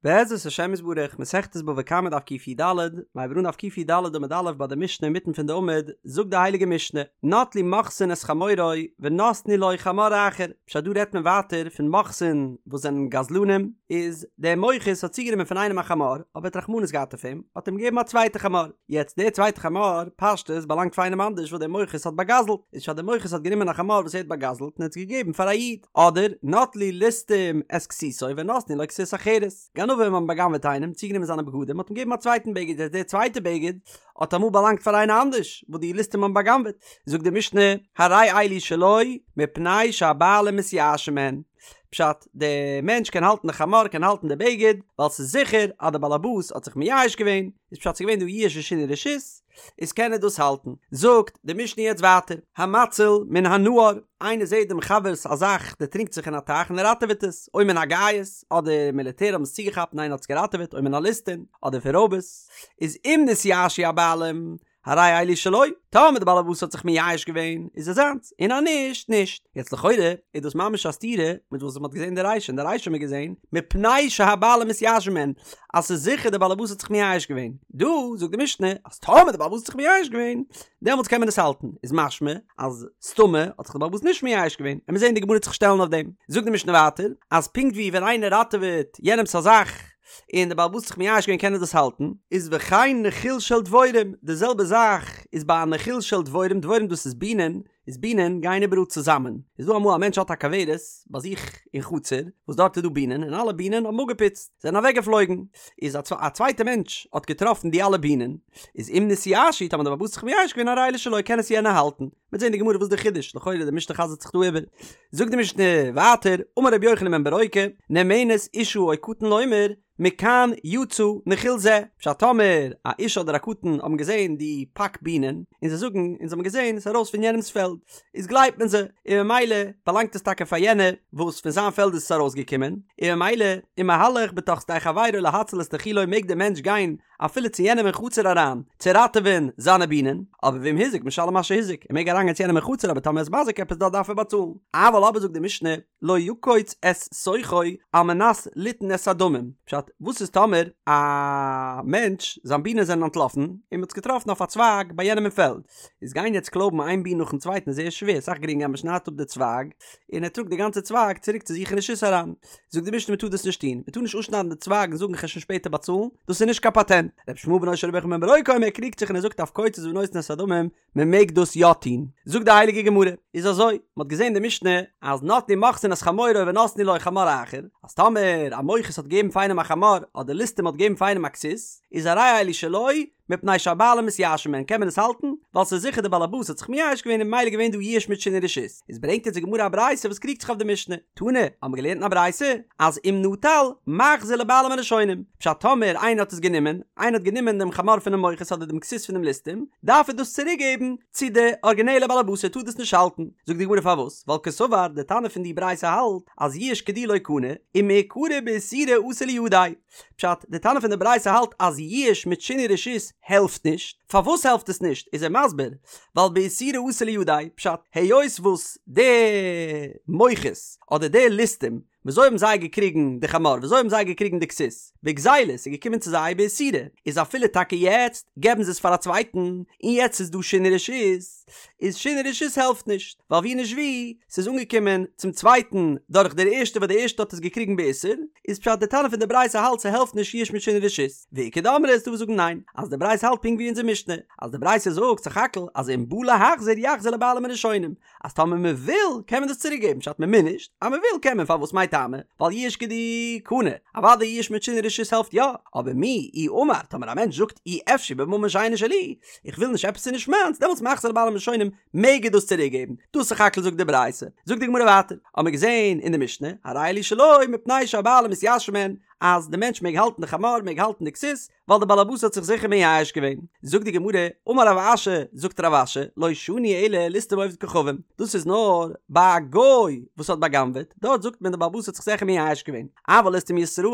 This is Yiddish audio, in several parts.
בעזרת השם יתברך, מסכת בבא קמא דף קי"ד, מ'הייבט אן דף קי"ד עמוד א' ביי די משנה אינמיטן פון די עמוד, זאגט די הייליגע משנה, נטלו מוכסין את חמורו ונתנו לו חמור אחר, פשט דא רעדט מען ווייטער פון מוכסין וואס זענען גזלנים, איז דער מוכס האט צוגענומען פון איינעם א חמור, אבער האט רחמנות געהאט אויף אים, האט אים געגעבן א צווייטע חמור, יעצט דער צווייטע חמור, פשטות, באלאנגט פאר איינעם אנדערש וואס דער מוכס האט באגזלט, איז פשט דער מוכס האט גענומען א חמור וואס ער האט באגזלט און האט עס געגעבן פאר א איד. אדער נטלו ליסטים את כסותו ונתנו לו כסות אחרת, גנבים האבן בא'גנב'עט איינעם, צוגענומען זיינע בגדים, מ'האט אים געגעבן א צווייטן בגד, יעצט דער צווייטער בגד האט אמאל באלאנגט פאר איינער אנדערש וואס די ליסטים האבן בא'גנב'עט, זאגט די משנה, הרי אלו שלו מפני שהבעלים מתייאשין מהן, פשט, דער מענטש קען האלטן די חמור, קען האלטן די בגד, ווייל ס'איז זיכער אז דער באלעבאס האט זיך מייאש געווען, איז פשט ס'איז געווען דא ייאוש ושינוי רשות, איז קען ער דאס האלטן. זאגט די משנה יעצט ווייטער, המציל מן הנהר, איינער זעט דעם חבר'ס א זאך דערטרינקט זיך אין א טייך און ער ראטעוועט עס, או מן הגייס, אדער מיליטער האבן עס צוגעכאפט און איינער האט עס געראטעוועט, או מן הליסטין, אדער פון רויבערס, איז אם נתייאשו הבעלים, הרי אלו שלו, טאמער די בעל הבית האט זיך מייאש געווען, איז עס זיינס, און אז נישט, נישט. יעצט לכאורה איז דאס ממש א סתירה מיט וואס מ'האט געזען אין די רישא, אין די רישא האט מען געזען, מפני שהבעלים מתייאשין מהן, אז ס'איז זיכער די בעל הבית האט זיך מייאש געווען. דא זאגט די משנה אז טאמער די בעל הבית האט זיך מייאש געווען, דעמאלטס קען מען עס האלטן. איז משמע אז סתמא האט זיך די בעל הבית נישט מייאש געווען. עמיר זען די גמרא וועט זיך שטעלן אויף דעם. זאגט די משנה ווייטער, אז פונקט ווי ווען איינער ראטעוועט יענעמ'ס א זאך, און די בעל הבית האט זיך מייאש געווען קען ער דאס האלטן, איז וכן נחיל של דבורים, די זעלבע זאך איז ביי א נחיל של דבורים, דבורים דאס איז בינען, איז בינען גייען איבעראל צוזאמען, איז דא אמאל א מענטש האט א כוורת ביי זיך אין חצר וואס דארט איז דא בינען און אלע בינען האבן אפגעפוצט זענען אוועק געפלויגן, איז א צווייטע מענטש האט געטראפן די אלע בינען, איז אם נתייאשו טאמער די בעל הבית האט זיך מייאש געווען הרי אלו שלו קען עס יענער האלטן, מ'וועט זען די גמרא וואס איז די חידוש, לכאורה די משנה חזר'ט זיך דא איבער. זאגט די משנה ווייטער, אמר רבי יוחנן בן ברוקה, נאמנת אשה או קטן לומר, מכאן יצא נחיל זה, פשט טאמער א אשה אדער א קטן האבן געזען די פאק בינען, און זיי זאגן אונז האבן געזען עס איז ארויס פון יענעמ'ס פעלד, איז גלייבט מען זיי, און ממילא באלאנגט עס טאקע פאר יענער וואס פון זיין פעלד איז עס ארויסגעקומען, און ממילא ומהלך בתוך שדה חברו להציל את נחילו מעג דער מענטש גיין אפילו צו יענעם אין חצר אריין צו ראטעווען זיינע בינען, אבער ואם הזיק משלם מה שהזיק, ער מעג אריינגיין צו יענעם אין חצר אבער טאמער ער איז מזיק עפעס דארט דארף ער באצאלן. אבל אבער זאגט די משנה, לא יקוץ את שוכו על מנת ליתן את הדמים, פשט, וואס איז טאמער א מענטש זיין בינען זענען אנטלאפן און מען האט עס געטראפן אויף א צווייג ביי יענעם אין פעלד, איז גיין יעצט קלויבן איין בין נאכן צווייטן איז זייער שווער, סאך גרינגער אז מען שניידט אפ די צווייג און ער טראגט די גאנצע צווייג צוריק צו זיך אין רשות אריין. זאגט די משנה מען טאר דאס נישט טון, מען טאר נישט אפשניידן די צווייג און זאגן כ'על שוין שפעטער באצאלן, דאס איז נישט קיין פאטענט. רבי ישמעאל בנו של רבי יוחנן בן ברוקה אומר ער קריגט זיך און ער זאגט אף קוצץ ונותן את הדמים, מען מעג דאס יא טון. זאגט די הייליגע גמרא, איז אזוי, מען האט געזען די משנה אז נטלו מוכסין את חמורו ונתנו לו חמור אחר, אז טאמער א מוכס האט געגעבן פאר איינעם א חמור אדער ליסטים האט געגעבן פאר איינעם א כסות, איז הרי אלו שלו, מפני שהבעלים מתייאשין מהן קען מען עס האלטן, ווייל ס'איז זיכער די בעל הבית האט זיך מייאש געווען און ממילא געווען דא ייאוש מיט שינוי רשות. איז ברענגט אונז די גמרא א ברייתא וואס קריגט זיך אויף די משנה. תנא, האבן מיר געלערנט אין א ברייתא, אז אם נטל, מחזיר לבעלים הראשונים. פשט טאמער איינער האט עס גענומען, איינער האט גענומען דעם חמור פונעם מוכס אדער דעם כסות פונעם ליסטים, דארף ער דאס צוריק געבן צו די ארגינעלע בעל הבית ער טאר דאס נישט האלטן. זאגט די גמרא פארוואס? ווייל קסבר, די תנא פון די ברייתא האלט אז ייאוש כדי לא קני, ומעיקרא באיסורא אתא לידיה. פשט, די תנא פון די ברייתא האלט אז ייאוש מיט שינוי רשות העלפט נישט, פארוואס העלפט עס נישט איז ער מסביר, ווייל באיסורא אתא לידיה, פשט, היות וואס די מוכס אדער די ליסטים, וויאזוי האבן זיי געקריגן די חמור, וויאזוי האבן זיי געקריגן די כסות, בגזילה, ס'איז געקומען צו זיי באיסורא, איז אפילו טאקע יעצט געבן זיי עס פאר א צווייטן, און יעצט איז דא שינוי רשות, איז שינוי רשות העלפט נישט, ווייל ווי נישט ווי, ס'איז אנגעקומען צום צווייטן דורך דער ערשטער וואס דער ערשטער האט עס געקריגן באיסור, איז פשט די תנא פון די ברייתא האלט ס'העלפט נישט ייאוש מיט שינוי רשות, ואיכא דאמרי איז דא וואס זאגן ניין, אז די ברייתא האלט פונקט ווי אונזער משנה, אז די ברייתא זאגט סך הכל אז אם בא להחזיר יחזיר לבעלים הראשונים, אז טאמער מען וויל קען מען דאס צוריק געבן, פשט מען מוז נישט, אז מען וויל קען מען, פארוואס מאי טעמא? ווייל ייאוש כדי קני, אוודאי ייאוש מיט שינוי רשות העלפט יא, אבער מיהו אי אמר, טאמער א מענטש זאגט אי אפשי בממון שאינו שלי, איך וויל נישט עפעס איז נישט מיינס, דעמאלטס מחזיר לבעלים הראשונים מעג ער דאס צוריק געבן, דאס סך הכל זאגט די ברייתא. זאגט די גמרא ווייטער, האמיר געזען אין די משנה, הרי אלו שלו מפני שהבעלים מתייאשין מהן, אז די מענטש מעג האלטן די חמור, מעג האלטן די כסות, ווייל די בעל הבית האט זיך זיכער מייאש געווען. זאגט די גמרא, אמר רב אשי, זאגט רב אשי, לא שנו אלא ליסטים ועובד כוכבים, דאס איז נאר ביי א גוי וואס האט בא'גנב'עט, דארט זאגט מען די בעל הבית האט זיך זיכער מייאש געווען, אבל ליסטים ישראל,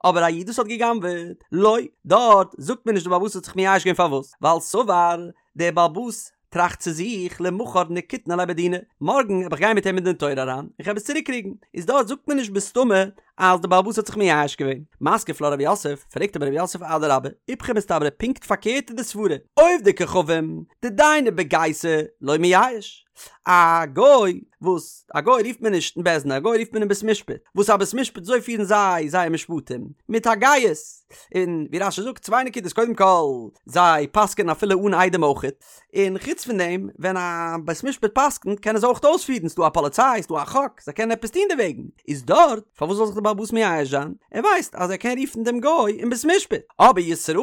אבער א איד וואס האט גע'גנב'עט, לא, דארט זאגט מען נישט די בעל הבית האט זיך מייאש געווען פארוואס? ווייל סבר, דער בעל הבית טראכט צו זיך למחר נקיטנא ליה בדינא, מארגן וועל איך גיין מיט אים אין דין תורה אריין, און כ'וועל עס צוריק קריגן, איז דארט זאגט מען נישט בסתמא אז די בעל הבית האט זיך מייאש געווען. מתקיף לה רב יוסף, פרעגט אבער רב יוסף אדרבה, איפכא מסתברא פונקט פארקערט איז די סברה, עובדי כוכבים, דדייני בגייסא, לא מייאש. א גוי וואס א גוי רופט מען נישט אין בית דין א גוי רופט מען אין בית משפט וואס א בית משפט אזוי פירן זיי זייער משפטים מיט א גייס און ווי רש"י זאגט צוויי נקודות קודם כל זיי פסק'ענען אפילו אן עדים אויכעט און חוץ פון דעם ווען א בית משפט פסק'נט קענען זיי אויך אויספירן ס'דא א פאליציי ס'דא א חוק זיי קענען עפעס טון דערוועגן איז דארט פארוואס זאל זיך די בעל הבית מייאש זיין ער ווייסט אז ער קען רופן דעם גוי אין בית משפט אבער ישראל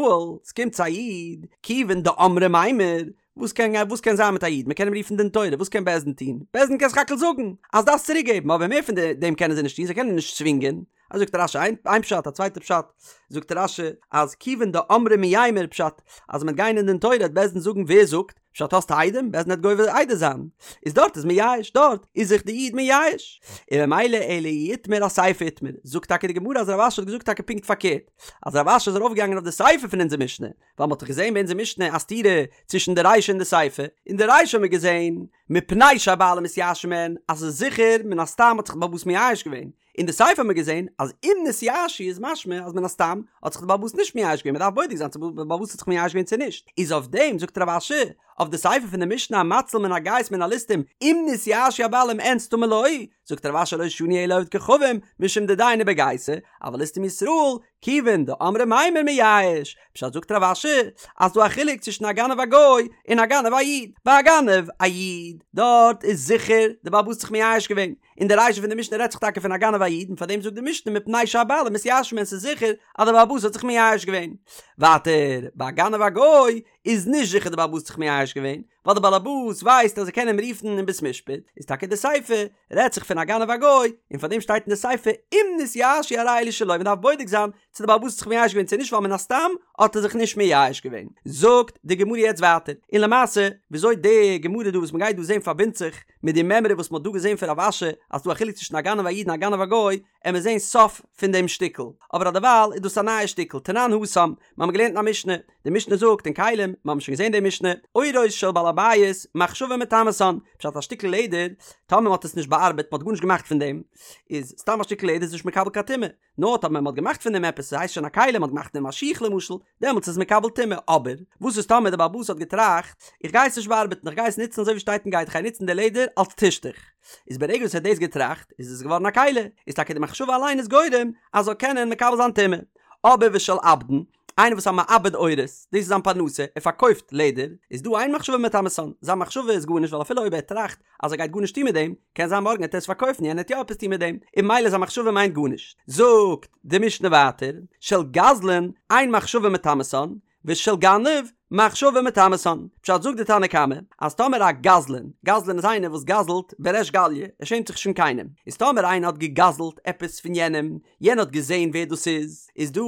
ס'קומט צו א איד כיוון דאמרי מימר וואס קען וואס קען זיין מיט א איד? מען קען אים רופן דין תורה, וואס קען בית דין טון? בית דין קען סך הכל זאגן אז דארפסט צוריק געבן, אבער מער פון דעם קענען זיי נישט טון, זיי קענען נישט צווינגען. אזוי זאגט רש"י איין פשט, א צווייטע פשט זאגט רש"י אז כיוון דאמרי מימר פשט אז מען וועט גיין אין דין תורה וועט בית דין זאגן ווער זאגט? פשט האסט עדים? בית דין וועט גובה עדות זיין. איז דארט איז מייאש, דארט איז זיך די איד מייאש. און ממילא אלא אי איתמר אסיפא איתמר, זאגט טאקע די גמרא אז רב אשי האט געזאגט טאקע פונקט פארקערט, אז רב אשי איז ארויפגעגאנגען אויף די סיפא פון אונזער משנה, ווייל מ'האט דאך געזען ביי אונזער משנה א סתירה צווישן די רישא און די סיפא, אין די רישא האט מען געזען מפני שהבעלים מתייאשין מהן אז ס'איז זיכער מן הסתם האט זיך די בעל הבית מייאש געווען, אין די סיפא האט מען געזען אז אם נתייאשו איז משמע אז מן הסתם האט זיך די בעל הבית נישט מייאש געווען מ'דארף בודק זיין צו די בעל הבית האט זיך מייאש געווען צו נישט, איז אויף דעם זאגט רב אשי אויף די סיפא פון די משנה המציל מן הגייס מן הליסטים אם נתייאשו הבעלים אין סתמא לא, זאגט רב אשי לא שנו אלא עובד כוכבים משום דדייני בגייסא אבל ליסטים ישראל כיוון דאמרי מימר מייאש, פשט זאגט רב אשי אז ס'דא א חילוק צווישן א גנב א גוי און א גנב א איד, ביי א גנב א איד דארט איז זיכער די בעל הבית האט זיך מייאש געווען, און די רישא פון די משנה רעדט זיך טאקע פון א גנב א איד און פארדעם זאגט די משנה מפני שהבעלים מתייאשין מהן ס'איז זיכער אז די בעל הבית האט זיך מייאש געווען. ווייטער ביי א גנב א גוי איז נישט זיכער די בעל הבית האט זיך מייאש געווען, ווייל די בעל הבית ווייסט אז ער קען אים רופן אין בית משפט, איז טאקע די סיפא רעדט זיך פון א גנב א גוי, און פאר דעם שטייט אין די סיפא אם נתייאשו הרי אלו שלו, מען דארף בודק זיין צו די בעל הבית האט זיך מייאש געווען צו נישט ווייל מן הסתם האט ער זיך נישט מייאש געווען. זאגט די גמרא יעצט ווייטער, און למעשה וויאזוי די גמרא דא וואס מען גייט דא זען פארבינדט זיך מיט די מימרא וואס מען האט דא געזען פון רב אשי אז ס'דא א חילוק צווישן א גנב א איד און א גנב א גוי, עמיר זען סוף פון דעם שטיקל, אבער אדערווייל איז דאס א נייע שטיקל, תנן התם, מיר האבן געלערנט אין א משנה, די משנה זאגט אין כלים, מיר האבן שוין געזען די משנה, עורות של בעל הבית, מחשבה מטמאתן, פשט א שטיקל לעדער, טאמער מען האט עס נישט באארבעט, מען האט גארנישט געמאכט פון דעם, איז סתם א שטיקל לעדער איז נישט מקבל קיין טומאה, נאר טאמער מען האט געמאכט פון דעם עפעס, ס'הייסט שוין א כלי, מען האט געמאכט פון דעם א שיך למשל, דעמאלטס איז מקבל טומאה, אבער וואס איז טאמער די בעל הבית האט געטראכט, איך גיי עס נישט באארבעטן, איך גיי עס נוצן אזוי ווי שטייט און גייט, איך גיי נוצן די לעדער אלס טישטוך, איז ברגע וואס ער האט דאס געטראכט, איז עס געווארן א כלי, איז טאקע די מחשבה אליין איז גורם אז זאל קענען מקבל זיין טומאה. אבער ושל עבדן, איינער וואס איז א מעבד עורות, דאס איז זיין פרנסה, ער פארקויפט לעדער, איז דא אין מחשבה מטמאתן, זיין מחשבה איז גארנישט ווייל אפילו אויב ער טראכט אז ער גייט גארנישט טון מיט דעם, קען זיין מארגן וועט ער עס פארקויפן יענער וועט יא עפעס טון מיט דעם, און ממילא זיין מחשבה מיינט גארנישט. זאגט די משנה ווייטער, של גזלן, אין מחשבה מטמאתן, ושל גנב, מחשבה מטמאתן. פשט זאגט די תנא קמא, אז טאמער א גזלן, גזלן איז איינער וואס גזל'ט בריש גליא, ער שעמט זיך נישט פון קיינעם, איז טאמער איינער האט געגזל'ט עפעס פון יענעם, יענער האט געזען ווער דאס איז, איז דא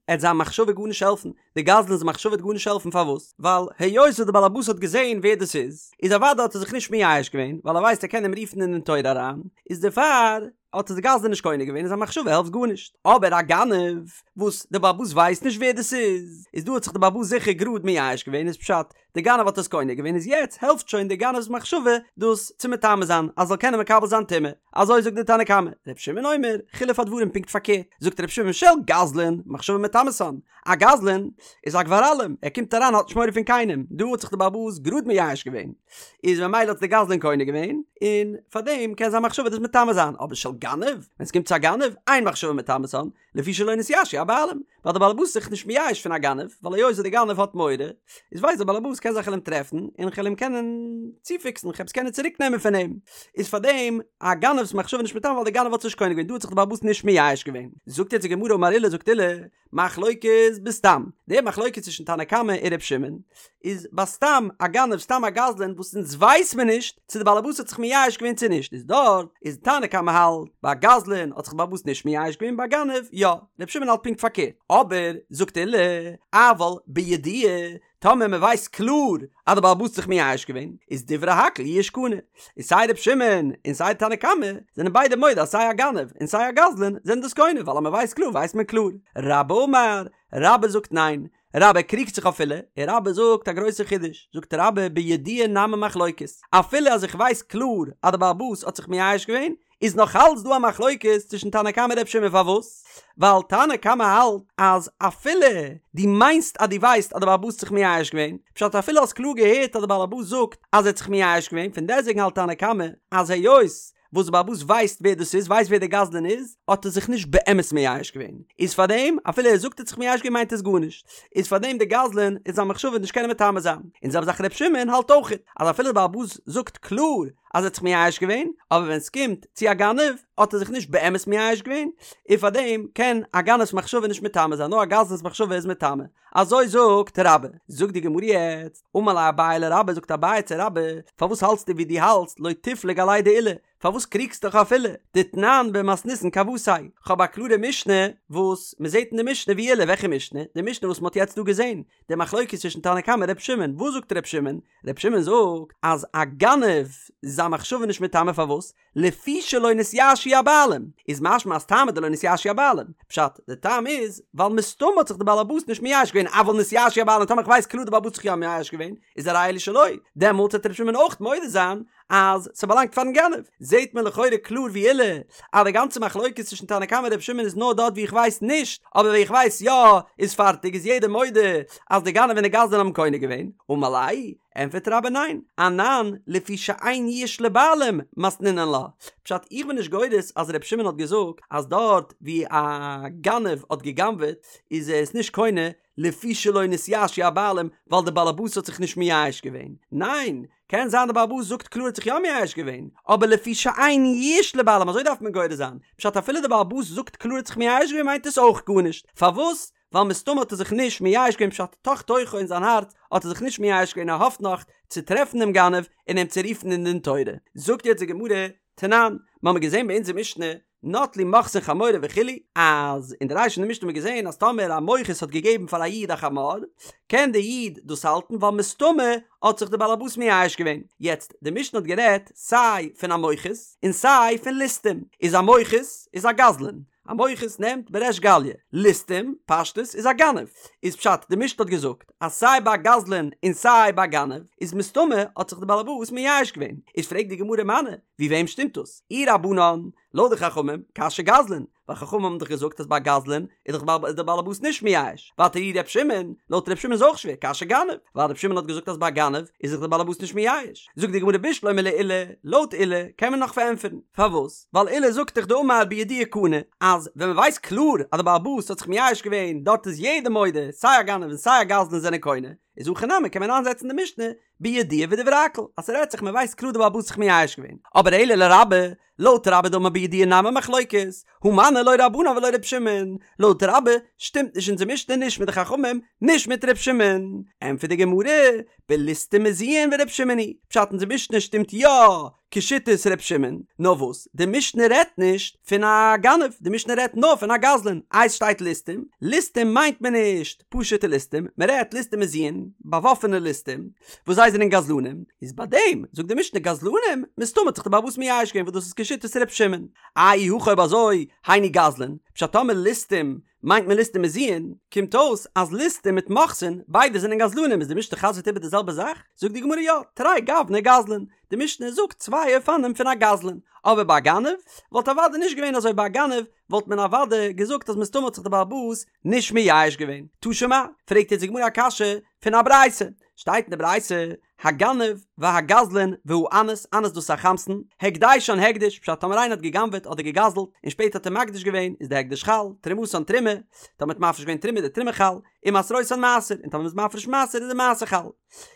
עט זיין מחשבה גארנישט העלפן, די גזלן'ס מחשבה וועט גארנישט העלפן פארוואס? ווייל היות וואס די בעלעבאס האט געזען ווער דאס איז, איז אוודאי האט ער זיך נישט מייאש געווען, ווייל ער ווייסט ער קען אים רופן אין דין תורה אריין, איז דערפאר האט עס די גזלן נישט קונה געווען און זיין מחשבה העלפט גארנישט. אבער א גנב וואס די בעלעבאס ווייסט נישט ווער דאס איז, איז דא האט זיך די בעלעבאס זיכער גראד מייאש געווען, איז פשט די גנב האט עס קונה געווען איז יעצט העלפט שוין די גנב'ס מחשבה דאס צו מטמא זיין אז זאל קענען מקבל זיין טומאה, אזוי זאגט די תנא קמא, ר' שמעון אומר, חילוף הדברים פונקט פארקערט, זאגט ר' שמעון של גזלן, מחשבה מטמאתן, א גזלן איז א גבר אלים, ער קומט אריין האט נישט מורא פון קיינעם, דא האט זיך די בעל הבית גראד מייאש געווען, איז ממילא האט די גזלן קונה געווען, און פארדעם קען זיין מחשבה דאס מטמא זיין, אבער של גנב, ווען עס קומט צו א גנב, אין מחשבה מטמאתן, לפי שלא נתייאשו הבעלים, ווייל די בעל הבית איז זיך נישט מייאש פון א גנב, ווייל היות די גנב האט מורא, איז ווייסט די בעל הבית קען זיך כ'על אים טרעפן, און כ'על אים קענען צופיקסן, כ'על עס קענען צוריק נעמען פון אים, איז פאר דעם א גנב'ס מחשבה נישט מטמא ווייל די גנב האט עס נישט קונה געווען, דא האט זיך די בעל הבית נישט מייאש געווען. זאגט יעצט די גמרא אמר עולא זאגט עולא, מחלוקת בסתם, די מחלוקת צווישן תנא קמא און ר' שמעון, איז ביי סתם א גנב סתם א גזלן וואס אונז ווייס מען נישט צו די בעלעבאס האט זיך מייאש געווען צו נישט איז דארט איז תנא קמא האלט ביי גזלן האט זיך די בעלעבאס נישט מייאש געווען ביי גנב יא ר' שמעון האלט פונקט פארקערט אבער זאגט עולא אבל בידוע טאמער מען ווייסט קלאר אז די בעלעבאס האט זיך מייאש געווען איז דברי הכל יאוש קנה איז סיי ר' שמעון און סיי תנא קמא זענען ביידע מודה אז סיי א גנב און סיי א גזלן זענען דאס קונה ווייל אז מען ווייסט קלאר ווייסט מען קלאר רבה אמר רבה זאגט ניין רבה קריגט זיך אויף עולא, און רבה זאגט א גרויסע חידוש, זאגט רבה בידוע נמי מחלוקת, אפילו אז איך ווייס קלאר אז די בעל הבית האט זיך מייאש געווען, איז נאך אלץ דא א מחלוקת צווישן תנא קמא און ר' שמעון פארוואס? ווייל תנא קמא האלט אז אפילו דו מיינסט אז דו ווייסט אז די בעל הבית האט זיך מייאש געווען, פשט אפילו האסט קלאר געהערט אז די בעל הבית זאגט אז ער האט זיך מייאש געווען, פון דעסטוועגן האלט תנא קמא אז היות וואס די בעל הבית ווייסט ווער דאס איז, ווייסט ווער דער גזלן איז, האט ער זיך נישט באמת מייאש געווען, איז פארדעם אפילו ער זאגט ער האט זיך מייאש געווען מיינט עס גארנישט, איז פארדעם דער גזלן איז זיין מחשבה נישט קענען מטמא זיין, און זעלבע זאך ר' שמעון האלט אויכעט אז אפילו די בעל הבית זאגט קלאר אז ער האט זיך מייאש געווען, אבער ווען סקומט צו א גנב האט ער זיך נישט באמת מייאש געווען, און פארדעם קען א גנב'ס מחשבה נישט מטמא זיין, נאר א גזלן'ס מחשבה איז מטמא. אזוי זאגט רבה. זאגט די גמרא יעצט, אמר ליה אביי לרבה, זאגט אביי צו רבה, פארוואס האלטסטו ווי דו האלטסט, לא תיפלוג עליה דעולא, פארוואס קריגסטו דיך אויף עולא, דתנן במתניתין כוותיה, כ'האב א קלארע משנה וואס מ'זעט אין די משנה ווי עולא, וועלכע משנה? די משנה וואס מ'האט יעצט דא געזען, די מחלוקת צווישן תנא קמא און ר' שמעון, וואס זאגט ר' שמעון? ר' שמעון זאגט אז א גנב איז זיין מחשבה נישט מטמא פארוואס? לפי שלא נתייאשו הבעלים, איז משמע אז טעמא דלא נתייאשו הבעלים, פשט, די טעם איז, ווייל מסתמא האט זיך די בעל הבית נישט מייאש געווען, אבל נתייאשו הבעלים, טאמער איך ווייס קלאר די בעל הבית האט זיך יא מייאש געווען, איז הרי אלו שלו, דעמאלטס וועט ר' שמעון אויך מודה זיין אז ס'באלאנגט פארן גנב. זעהט מען לכאורה קלאר ווי עולא, אז די גאנצע מחלוקת צווישן תנא קמא און ר' שמעון איז נאר דארט ווי איך ווייס נישט, אבער ווי איך ווייס יא, איז פארטיג, איז יעדער מודה אז די גנב און די גזלן האבן קונה געווען, אמר ליה, ענטפערט רבה ניין, אנן לפי שאין יאוש לבעלים מתנינן לה, פשט איך בין נישט גורס אז ר' שמעון האט געזאגט אז דארט ווי א גנב האט גע'גנב'עט איז ער עס נישט קונה לפי שלא נתייאשו הבעלים ווייל די בעלעבאס האט זיך נישט מייאש געווען, ניין, קען זיין די בעלעבאס זאגט קלאר האט זיך יא מייאש געווען, אבער לפי שאין יאוש לבעלים אזוי דארף מען גורס זיין, פשט אפילו די בעלעבאס זאגט קלאר האט זיך מייאש געווען מיינט עס אויך גארנישט, פארוואס? ווייל מסתמא האט ער זיך נישט מייאש געווען פשט תוך תוכו אין זיין הארץ האט ער זיך נישט מייאש געווען ער האפט נאך צו טרעפן דעם גנב און אים צו רופן אין דין תורה. זאגט יעצט די גמרא, תנן, מ'האמיר געזען ביי אונזער משנה, נטלו מוכסין חמורו וכו', אז אין די רישא פון די משנה האמיר געזען אז טאמער א מוכס האט געגעבן פאר א איד א חמור, קען דער איד דאס האלטן ווייל מסתמא האט זיך דער בעלעבאס מייאש געווען. יעצט, די משנה האט גערעדט סיי פון א מוכס און סיי פון ליסטים, איז א מוכס איז א גזלן, א מוכס נעמט בריש גליא, ליסטים, פשטות, איז א גנב. איז פשט, די משנה האט געזאגט אז סיי ביי א גזלן און סיי ביי א גנב איז מסתמא האט זיך די בעלעבאס מייאש געווען. איז פרעגט די גמרא מני, ווי וועם שטימט דאס? אי רבנן, לויט די חכמים, קשיא גזלן, ווייל חכמים האבן דאך געזאגט אז ביי א גזלן איז דאך די בעלעבאס נישט מייאש. ווייטער אי ר' שמעון, לויט ר' שמעון איז אויך שווער, קשיא גנב, ווייל ר' שמעון האט געזאגט אז ביי א גנב איז זיך די בעלעבאס נישט מייאש. זאגט די גמרא בשלמא לעולא, לויט עולא קען מען נאך פארענטפערן. פארוואס? ווייל עולא זאגט דאך דאמר בידוע קנה, אז ווען מען ווייסט קלאר אז די בעל הבית האט זיך מייאש געווען דארט איז יעדער מודה סיי א גנב און סיי א גזלן זענען קונה, איז הכא נמי קען מען איינזעצן די משנה בידוע ודברי הכל אז ס'רעדט זיך מען ווייסט קלאר די בעל הבית האט זיך מייאש געווען, אבער אלא לרבה, לויט רבה דאמר בידוע נמי מחלוקת, הא מני לא רבנן ולא ר' שמעון, לויט רבה שטימט נישט אונזער משנה נישט מיט די חכמים נישט מיט ר' שמעון, ענטפערט די גמרא, בליסטים מזויין ור' שמעון היא, פשט אונזער משנה שטימט יא כשיטת ר' שמעון, נאר וואס, די משנה רעדט נישט פון א גנב, די משנה רעדט נאר פון א גזלן, איי ס'שטייט ליסטים, ליסטים מיינט מען נישט פשוטע ליסטים, מען רעדט ליסטים מזויין, באוואפענע ליסטים, וואס זיי זענען גזלנים, איז ביי דעם זאגט די משנה גזלנים, מסתמא האט זיך די בעל הבית מייאש געווען וואס דאס איז כשיטת ר' שמעון, איי אי הכי אויב אזוי, היינו גזלן, פשט טאמער ליסטים מיינט מען ליסטים מזויין, קומט אויס אז ליסטים מיט מוכסין ביידע זענען גזלנים איז די משנה חזר'ט איבער די זעלבע זאך? זאגט די גמרא יא, תרי גווני גזלן, די משנה זאגט צוויי אופנים פון א גזלן, אבער ביי א גנב וואלט אוודאי נישט געווען אזוי ביי א גנב וואלט מען אוודאי געזאגט אז מסתמא האט זיך די בעל הבית נישט מייאש געווען. תא שמע, פרעגט יעצט די גמרא א קשיא פון א ברייתא, שטייט אין די ברייתא, הגנב והגזלן והאנס, אנס דאס איז א חמסן, הקדשן הקדש, פשט טאמער איינער האט גע'גנב'עט אדער גע'גזל'ט און שפעטער האט ער מקדיש געווען איז די הקדש חל, תרומתן תרומה, טאמער האט מפריש געווען תרומה איז די תרומה חל, ומעשרותן מעשר, און טאמער מ'איז מפריש מעשר איז די מעשר חל.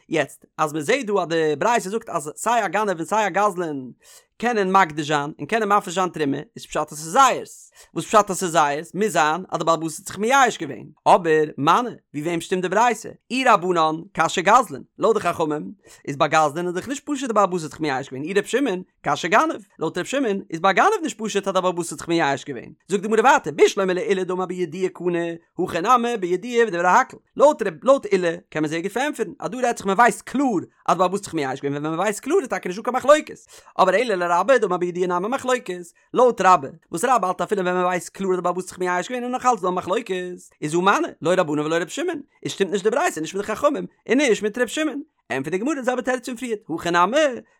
יעצט, אז מ'זעט דא אז די ברייתא זאגט אז סיי א גנב און סיי א גזלן קענען מקדיש זיין און קענען מפריש זיין תרומה, איז פשט אז ס'איז זייערס. וואס פשט אז ס'איז זייערס? מוז זיין אז די בעל הבית האט זיך מייאש געווען. אבער, מני, ווי וועם שטימט די ברייתא? אי רבנן, קשיא גזלן. לויט די חכמים, איז ביי גזלן איז דאך נישט פשוט די בעל הבית האט זיך מייאש געווען. אי ר' שמעון, קשיא גנב. לויט ר' שמעון, איז ביי גנב נישט פשוט אז די בעל הבית האט זיך מייאש געווען. זאגט די גמרא ווייטער, בשלמא לעולא דאמר בידוע קנה, הכא נמי בידוע ודברי הכל. לויט ר' לויט עולא קען מען זייער גוט פארענטפערן אז דא רעדט זיך מען ווייסט קלאר אז די בעל הבית האט זיך מייאש געווען ווען מען ווייסט קלאר איז טאקע נישטא קיין מחלוקת. אבער אלא לרבה דאמר בידוע נמי מחלוקת. לויט רבה, וואס רבה האלט אפילו ווען מען ווייסט קלאר אז די בעל הבית האט זיך מייאש געווען איז נאך אלץ דא א מחלוקת, איז הא מני, לא רבנן ולא ר' שמעון, איז שטימט נישט די ברייתא נישט מיט די חכמים און נישט מיט ר' שמעון. ענטפערט די גמרא די זעלבע תירוץ פון פריערט, הכא נמי,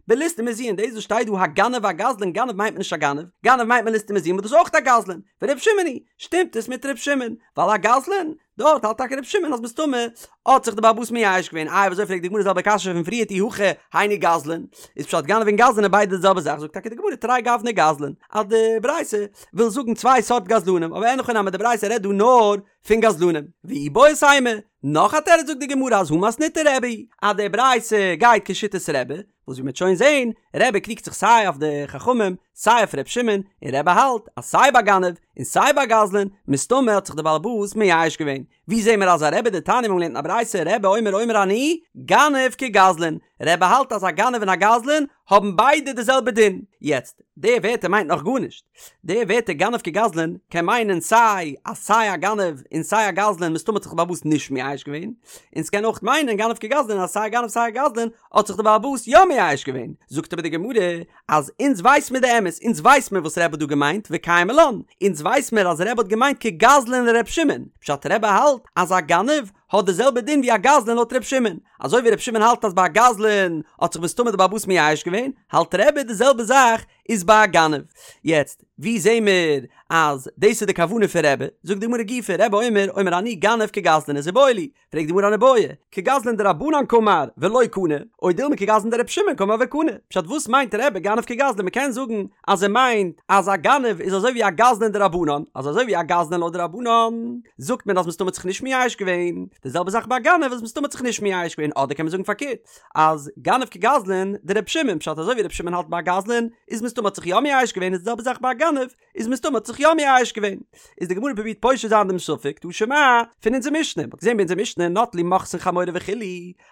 בליסטים מזוין, דאס וואס שטייט דא הגנב והגזלן, גנב מיינט מען נישט א גנב, גנב מיינט מען ליסטים מזוין וואס דאס איז אויך א גזלן, ור' שמעון היא, שטימט עס מיט ר' שמעון, ווייל א גזלן, דארט האלט טאקע ר' שמעון אז מסתמא האט זיך די בעל הבית מייאש געווען, איי ווי אזוי פרעגט די גמרא די זעלבע קשיא פון פריערט אי הכי היינו גזלן, איז פשט גנב און גזלן איז ביידע די זעלבע זאך, זאגט טאקע די גמרא תרי גווני גזלן, אז די ברייתא וויל זאגן צוויי סארט גזלנים, אבער אין הכי נמי די ברייתא רעדט דא נאר פון גזלנים, ואיבעית אימא, נאך א תירוץ זאגט די גמרא אז הא מתניתא רבי, אז די ברייתא גייט כשיטת רבי, וואס ווי מ'וועט שוין זעהן, רבי קריגט זיך סיי אויף די חכמים, סיי אויף ר' שמעון, און רבי האלט אז סיי ביי גנב און סיי ביי גזלן, מסתמא האט זיך די בעל הבית מייאש געווען. ווי זעהן מיר אזא רבי דתניא מיר האבן געלערנט אין א ברייתא רבי אומר אומר אני, גנב כגזלן, רבי האלט אז א גנב און א גזלן האבן ביידע די זעלבע דין. יעצט, די ווערטער מיינט נאך גארנישט. די ווערטער גנב כגזלן קען מיינען סיי אז סיי א גנב און סיי א גזלן מסתמא האט זיך די בעל הבית נישט מייאש געווען, און ס'קען אויך מיינען גנב כגזלן אז סיי א גנב סיי א גזלן האט זיך די בעל הבית יא מייאש געווען. זאגט אבער די גמרא אז אונז ווייס מיר די אמת, אונז ווייס מיר וואס רבי האט דא געמיינט וקיימא לן, אונז ווייס מיר אז רבי האט געמיינט כגזלן לר' שמעון, פשט רבי האלט אז א גנב האט די זעלבע דין ווי א גזלן לויט ר' שמעון, אזוי ווי ר' שמעון האלט אז ביי א גזלן האט זיך מסתמא די בעל הבית מייאש געווען, האלט רבי די זעלבע זאך איז ביי א גנב. יעצט, ווי זעהן מיר אז דאס איז די כוונה פון רבי? זאגט די גמרא גופא, רבי אומר, אומר אני גנב כגזלן איז איבעיא להו, פרעגט די גמרא אן איבעיא, כגזלן דרבנן קאמר ולא קני, או דילמא כגזלן דרבי שמעון קאמר וקני, פשט וואס מיינט רבי גנב כגזלן מ'קען זאגן אז ער מיינט אז א גנב איז אזוי ווי א גזלן דרבנן, אז אזוי ווי א גזלן לויט די רבנן זאגט מען אז מסתמא האט זיך נישט מייאש געווען, די זעלבע זאך ביי א גנב אז מסתמא האט זיך נישט מייאש געווען, אדער קען מען זאגן פארקערט אז גנב כגזלן דרבי שמעון, פשט אזוי ווי רבי שמעון האלט ביי א גזלן איז מסתמא האט זיך יא מייאש געווען איז די זעלבע זאך ביי א גנב איז מסתמא האט זיך יא מייאש געווען. איז די גמרא פרובירט פושט זיין דעם ספק תא שמע פון אונזער משנה, מ'האט געזען ביי אונזער משנה נטלו מוכסין חמורו וכו'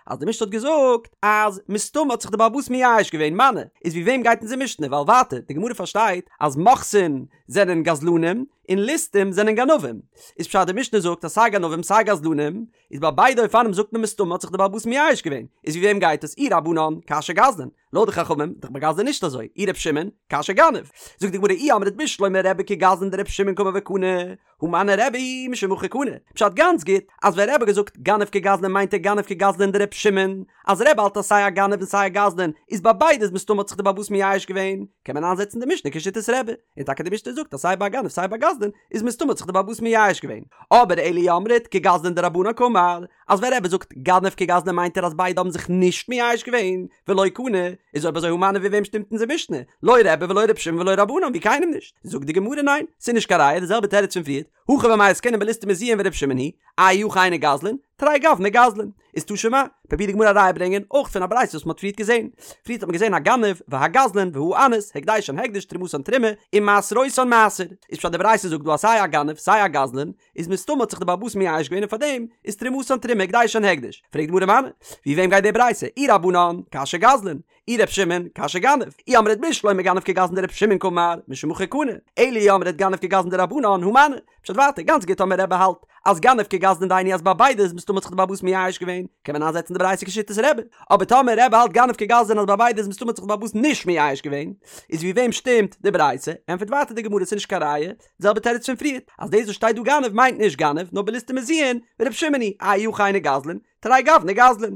אז די משנה האט געזאגט אז מסתמא האט זיך די בעל הבית מייאש געווען, מני, איז ווי וועם גייט אונזער משנה? ווייל ווייטער די גמרא פארשטייט אז מוכסין זענען גזלנים און ליסטים זענען גנבים, איז פשט די משנה זאגט אז סיי גנבים סיי גזלנים איז ביי ביידע אופנים זאגט מען מסתמא האט זיך די בעל הבית מייאש געווען, איז ווי וועם גייט עס? אי רבנן, קשיא גזלן, לויט די חכמים, דאך ביי גזלן נישט אזוי, אי ר' שמעון, קשיא גנב. זאגט די גמרא אי אמרת בשלמא רבי כגזלן דר' שמעון קאמר וקני, הא מני רבי משום הכי קני. פשט גאנץ גוט, אז ווען רבי האט געזאגט גנב כגזלן מיינט ער גנב כגזלן דר' שמעון, אז רבי האלט אז סיי א גנב און סיי א גזלן איז ביי ביידע איז מסתמא האט זיך די בעל הבית מייאש געווען, קען מען איינזעצן די משנה כשיטת רבי, און טאקע די משנה זאגט אז סיי ביי א גנב סיי ביי א גזלן איז מסתמא האט זיך די בעל הבית מייאש געווען. אבער אלא אי אמרת כגזלן דרבנן קאמר, אז ווען רבי זאגט גנב כגזלן מיינט ער אז ביידע האבן זיך נישט מייאש געווען, ולא קני, איז אויב אזוי הא מני ווי וועם שטימט אונזער משנה? לא רבי ולא ר' שמעון ולא רבנן ווי קיינעם נישט. זאגט די גמרא ניין, ס'איז נישט קיין ראיה די זעלבע תירוץ פון פריערט, הכא במאי עסקינן בליסטים מזוין ור' שמעון היא, אי הכי היינו גזלן, תרי גווני גזלן. איז תא שמע, פרובירט די גמרא א ראיה ברענגען אויך פון א ברייתא וואס מ'האט פריערט געזען. פריערט האט מען געזען הגנב והגזלן והאנס, הקדשן הקדש, תרומתן תרומה, ומעשרותן מעשר. איז פשט די ברייתא זאגט דא אז סיי א גנב סיי א גזלן איז מסתמא האט זיך די בעל הבית מייאש געווען און פארדעם איז תרומתן תרומה הקדשן הקדש. פרעגט די גמרא מני, ווי וועם גייט די ברייתא? אי רבנן, קשיא גזלן. אי ר' שמעון, קשיא גנב. אי אמרת בשלמא גנב כגזלן דר' שמעון קאמר, משום הכי קני. אלא אי אמרת גנב כגזלן דרבנן, הא מני. פשט ווייטער, גאנץ גוט טאמער רבי האלט אז גנב כגזלן דהיינו אז ביי ביידע איז מסתמא האט זיך די בעל הבית מייאש געווען, קען מען איינזעצן די ברייתא כשיטת רבי. אבער טאמער רבי האלט גנב כגזלן אז ביי ביידע איז מסתמא האט זיך די בעל הבית נישט מייאש געווען, איז ווי וועם שטימט די ברייתא? ענטפערט ווייטער די גמרא ס'איז נישט קיין ראיה, די זעלבע תירוץ פון פריערט, אז דאס וואס שטייט דא גנב מיינט נישט גנב, נאר בליסטים מזוין, ור' שמעון היא, אי הכי היינו גזלן, תרי גווני גזלן.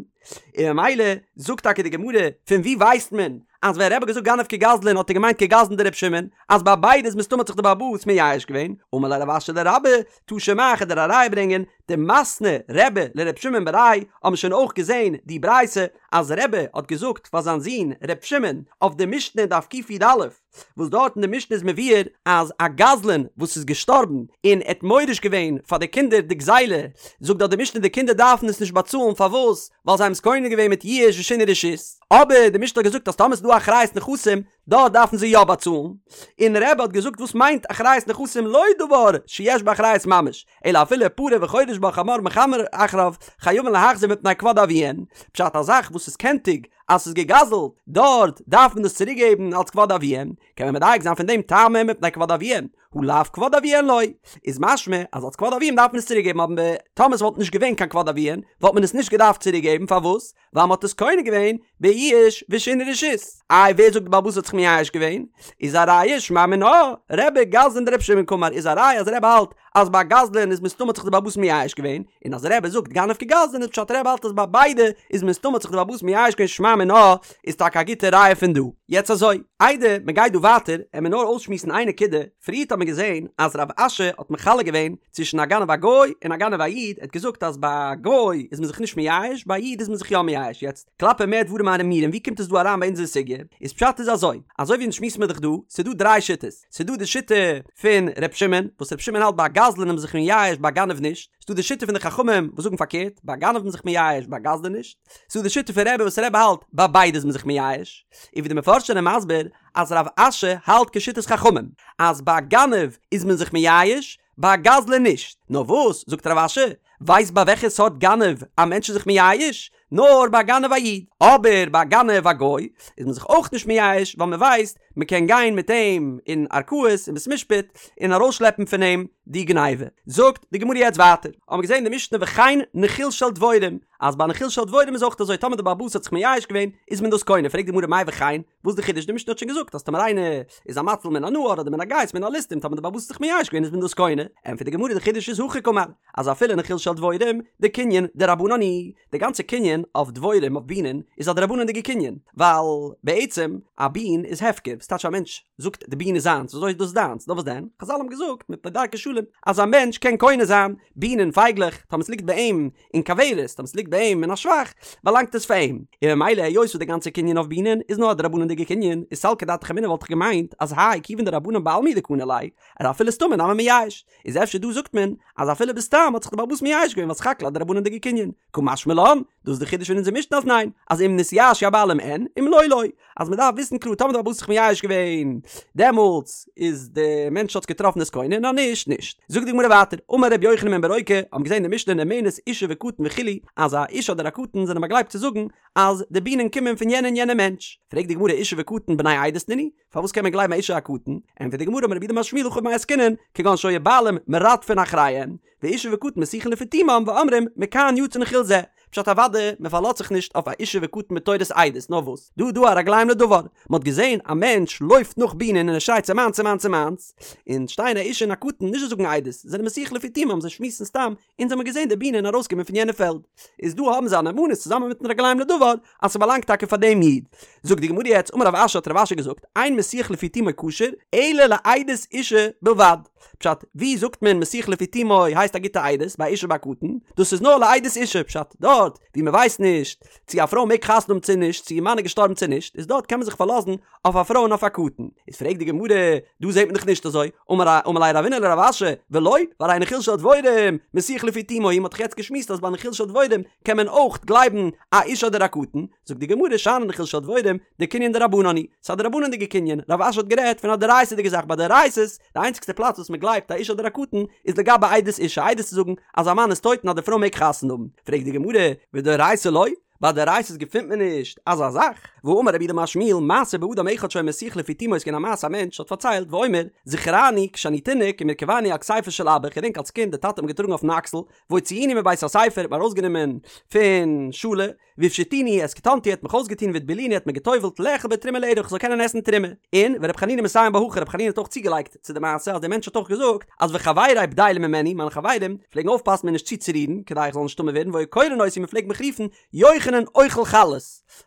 און ממילא זאגט טאקע די גמרא, פון וואו ווייסט מען אז ווען רבי האט געזאגט גנב כגזלן האט ער געמיינט כגזלן דר' שמעון, אז ביי ביידע איז מסתמא האט זיך די בעל הבית מייאש געווען, אמר ליה רב אשי לרבה, תא שמע כ'וועל דיר א ראיה ברענגען, דמתני רבי לר' שמעון בריה האבן שוין אויך געזען די ברייתא אז רבי האט געזאגט פאר זיין זון ר' שמעון אויף די משנה אין דף קי"א, וואס דארט אין די משנה איז מבואר אז א גזלן וואס איז געשטארבן און ער האט מוריש געווען פאר די קינדער די גזילה, זאגט דארט די משנה די קינדער דארפן עס נישט באצאלן פארוואס? ווייל זיי האבן עס קונה געווען מיט יאוש ושינוי רשות, אבער די משנה האט געזאגט אז טאמער ס'איז דא אחריות נכסים דארט דארפן זיי יא באצאלן, און רבי האט געזאגט וואס מיינט אחריות נכסים לא דבר שיש בו אחריות ממש, אלא אפילו פרה וחורש בה חמור מחמר אחריו חייבין להחזיר מפני כבוד אביהן, פשט א זאך וואס איז קענטיג. אז ס'איז געגזלט, דארט דארף מען דאס צוריק געבן אלץ כבוד אביהם, קען מען מדייק זיין פון דעם טעמא מפני כבוד אביהם, הא לאו כבוד אביהן לא, איז משמע אז אלץ כבוד אביהם דארף מען עס צוריק געבן אבער טאמער ס'וואלט נישט געווען קיין כבוד אביהן וואלט מען עס נישט געדארפט צוריק געבן פארוואס? ווייל מ'האט עס קונה געווען ביאוש ושינוי רשות. איי ווער זאגט די בעל הבית האט זיך מייאש געווען? איז א ראיה שמע מינה, רבי גזלן דרבי שמעון קאמר איז א ראיה אז רבי האלט אז ביי גזלן איז מסתמא האט זיך די בעל הבית מייאש געווען, און אז רבי זאגט גנב כגזלן איז פשט רבי האלט אז ביי ביידע איז מסתמא האט זיך די בעל הבית מייאש געווען שמע מינה איז טאקע א גוטע ראיה פון דא. יעצט אזוי, איידער מ'גייט דא ווייטער עמיר נאר אויסשמועסן איין נקודה, פריערט האט מען געזען אז רב אשי האט מחלק געווען צווישן א גנב א גוי און א גנב א איד, ער האט געזאגט אז ביי א גוי איז מען זיך נישט מייאש, ביי א איד איז מען זיך יא מייאש, יעצט כלפי מה דברים אמורים ווי קומט עס דא אריין ביי אונזער סוגיא, איז פשט איז אזוי, אזוי ווי אונז שמועסן מיר דאך דא, ס'איז דא דריי שיטות, ס'איז דא די שיטה פון ר' שמעון, וואס ר' שמעון האלט ביי א גזלן איז מען זיך מייאש ביי א גנב נישט, ס'איז דא די שיטה פון די חכמים וואס זאגן פארקערט, ביי א גנב איז מען זיך מייאש ביי א גזלן נישט, ס'איז דא די שיטה פון רבי וואס רבי האלט ביי ביידע איז מען זיך מייאש, און ווי די מפרשים זענען מסביר אז רב אשי האלט כשיטת חכמים אז ביי א גנב איז מען זיך מייאש, ביי א גזלן נישט. נאר וואס, זאגט רב אשי, ווייסט ביי וועלכע סארט גנב א מענטש איז זיך מייאש? נאר ביי א גנב א איד. אבער ביי א גנב א גוי איז מען זיך אויך נישט מייאש ווייל מען ווייסט מען קען גיין מיט אים אין ערכאות אין בית משפט און ארויסשלעפן פון אים די גניבה. זאגט די גמרא יעצט ווייטער, האבן מיר געזען די משנה וכן נחיל של דבורים, אז ביי נחיל של דבורים איז אויך אזוי טאמער די בעל הבית האט זיך מייאש געווען איז מען דאס קונה, פרעגט די גמרא מאי וכן, וואס די חידוש? די משנה האט שוין געזאגט אז טאמער איינער איז א מציל מן הנהר אדער מן הגייס מן הליסטים טאמער די בעל הבית האט זיך מייאש געווען איז מען דאס קונה, ענטפערט די גמרא די חידוש איז הכי קאמר אז אפילו נחיל של דבורים דקנין דרבנן הוא, די גאנצע קנין אויף דבורים אויף בינען איז א דרבנן'דיגע קנין, ווייל בעצם א בין איז הפקר, וואס טייטש א מענטש זאגט די בין איז זיינס, וויאזוי איז דאס דיינס? נאר וואס דען? חזל האבן געזאגט מפני דרכי שלום אז א מענטש קען קונה זיין בינען פייגלעך טאמער ס'ליגט ביי אים אין כוורת, טאמער ס'ליגט ביי אים אין א שבח, באלאנגט עס פאר אים. און ממילא היות וואס די גאנצע קנין אויף בינען איז נאר א דרבנן'דיגע קנין, איז סלקא דעתך אמינא וואלט איך געמיינט אז האי כיוון דרבנן בעלמא הוא דקני ליה, אז אפילו סתמא נמי מייאש. איז אפשר דא זאגט מען אז אפילו בסתם האט זיך די בעל הבית מייאש געווען ווייל סך הכל א דרבנן'דיגע קנין. קא משמע לן, דאס איז די חידוש פון אונזער משנה אז ניין, אז אם נתייאשו הבעלים אין, אם לא לא. אז מען דארף וויסן קלאר טאמער די בעל הבית האט זיך מייאש געווען דעמאלטס איז די מענטש האט עס געטראפן איז קונה און אז נישט נישט. זאגט די גמרא ווייטער, אמר ר' יוחנן בן ברוקה, האבן געזען די משנה נאמנת אישה וקטן וכו' אז א אישה אדער א קטן זענען באגלייבט צו זאגן אז די בינען קומען פון יענע און יענע מענטש. פרעגט די גמרא אישה וקטן בני עדות נינהו? פארוואס קען מען גלייבן א אישה א קטן? ענטפערט די גמרא אמר רב יהודה אמר שמואל הכא במאי עסקינן כגון שהיו בעלים מרדפין אחריהם ואישה וקטן משיחין לפי תומם ואומרים מכאן יצא נחיל זה, פשט אוודאי מען פארלאזט זיך נישט אויף א אישה וקטן בתורת עדות נאר וואס דא דא א רגליים לדבר מען האט געזען א מענטש לויפט נאך בינען און ער שרייט ס'מיינס ס'מיינס ס'מיינס און שטייען א אישה און א קטן נישט זיי זאגן עדות זיי זענען משיח לפי תומם זיי שמועסן סתם אונז האמיר געזען די בינען ארויסקומען פון יענע פעלד איז דא האבן זיי א נאמנות צוזאמען מיטן רגליים לדבר אז ס'באלאנגט טאקע פאר דעם איד. זאגט די גמרא יעצט אמר רב אשי האט רב אשי געזאגט אין משיח לפי תומו כשר אלא לעדות אישה בלבד. פשט, ווי זאגט מען משיח לפי תומו הייסט א גוטע עדות ביי אישה ביי קטן? דאס איז נאר לעדות אישה, פשט, דארט ווי מ'ווייסט נישט צו א פרוי מעג חתונה האבן צו נישט, צו איר מאן איז געשטארבן צו נישט, איז דארט קען מען זיך פארלאזן אויף א פרוי און אויף א קטן. איז פרעגט די גמרא, דא זעט מען דאך נישט אזוי, אמר אמר ליה רבינא לרב אשי, ולא, והרי נחיל של דבורים, משיח לפי תומו הוא, מ'האט דאך יעצט געשמועסט אז ביי נחיל של דבורים קען מען אויך גלייבן א אישה אדער א קטן, זאגט די גמרא שאני נחיל של דבורים, דקנין דרבנן הוא, ס'איז א דרבנן'דיגע קנין, רב אשי האט גערעדט פון א דאורייתא'דיגע זאך ביי דאורייתא'ס, די איינציגסטע פלאץ וואס מ'גלייבט א אישה אדער א קטן איז לגבי עדות אישה, עדות צו זאגן אז א מאן איז טויט און אז די פרוי מעג חתונה האבן, פרעגט די גמרא, ודאורייתא לא? ביי דאורייתא'ס געפינט מען נישט אזא זאך, והאמר רב יהודה אמר שמואל, מעשה באדם אחד שהיה משיח לפי תומו איז געווען א מעשה א מענטש האט פארציילט ואומר, זכורני כשאני תינוק ומרכיבני על כתפו של אבא, כ'געדענק אלס קינד די טאטע האט מיר געטראגן אויפן אקסל, והוציאוני מבית הספר האט מיר ארויסגענומען פון שולע, והפשיטוני את כתנתי האט מיך אויסגעטון והטבילוני האט מיר געטובלט לאכול בתרומה לערב איך זאל קענען עסן תרומה. און ור' חנינא מסיים בה הכי ר' חנינא האט אויך צוגעלייגט צו די מעשה אז דער מענטש האט אויך געזאגט אז וחברי בדילים ממני מיינע חברים פלעגן אויפפאסן מיר נישט צוצורירן כדי איך זאל נישט טמא ווערן והיו קורין אותי מען פלעגט מיך רופן יוחנן אוכל חלות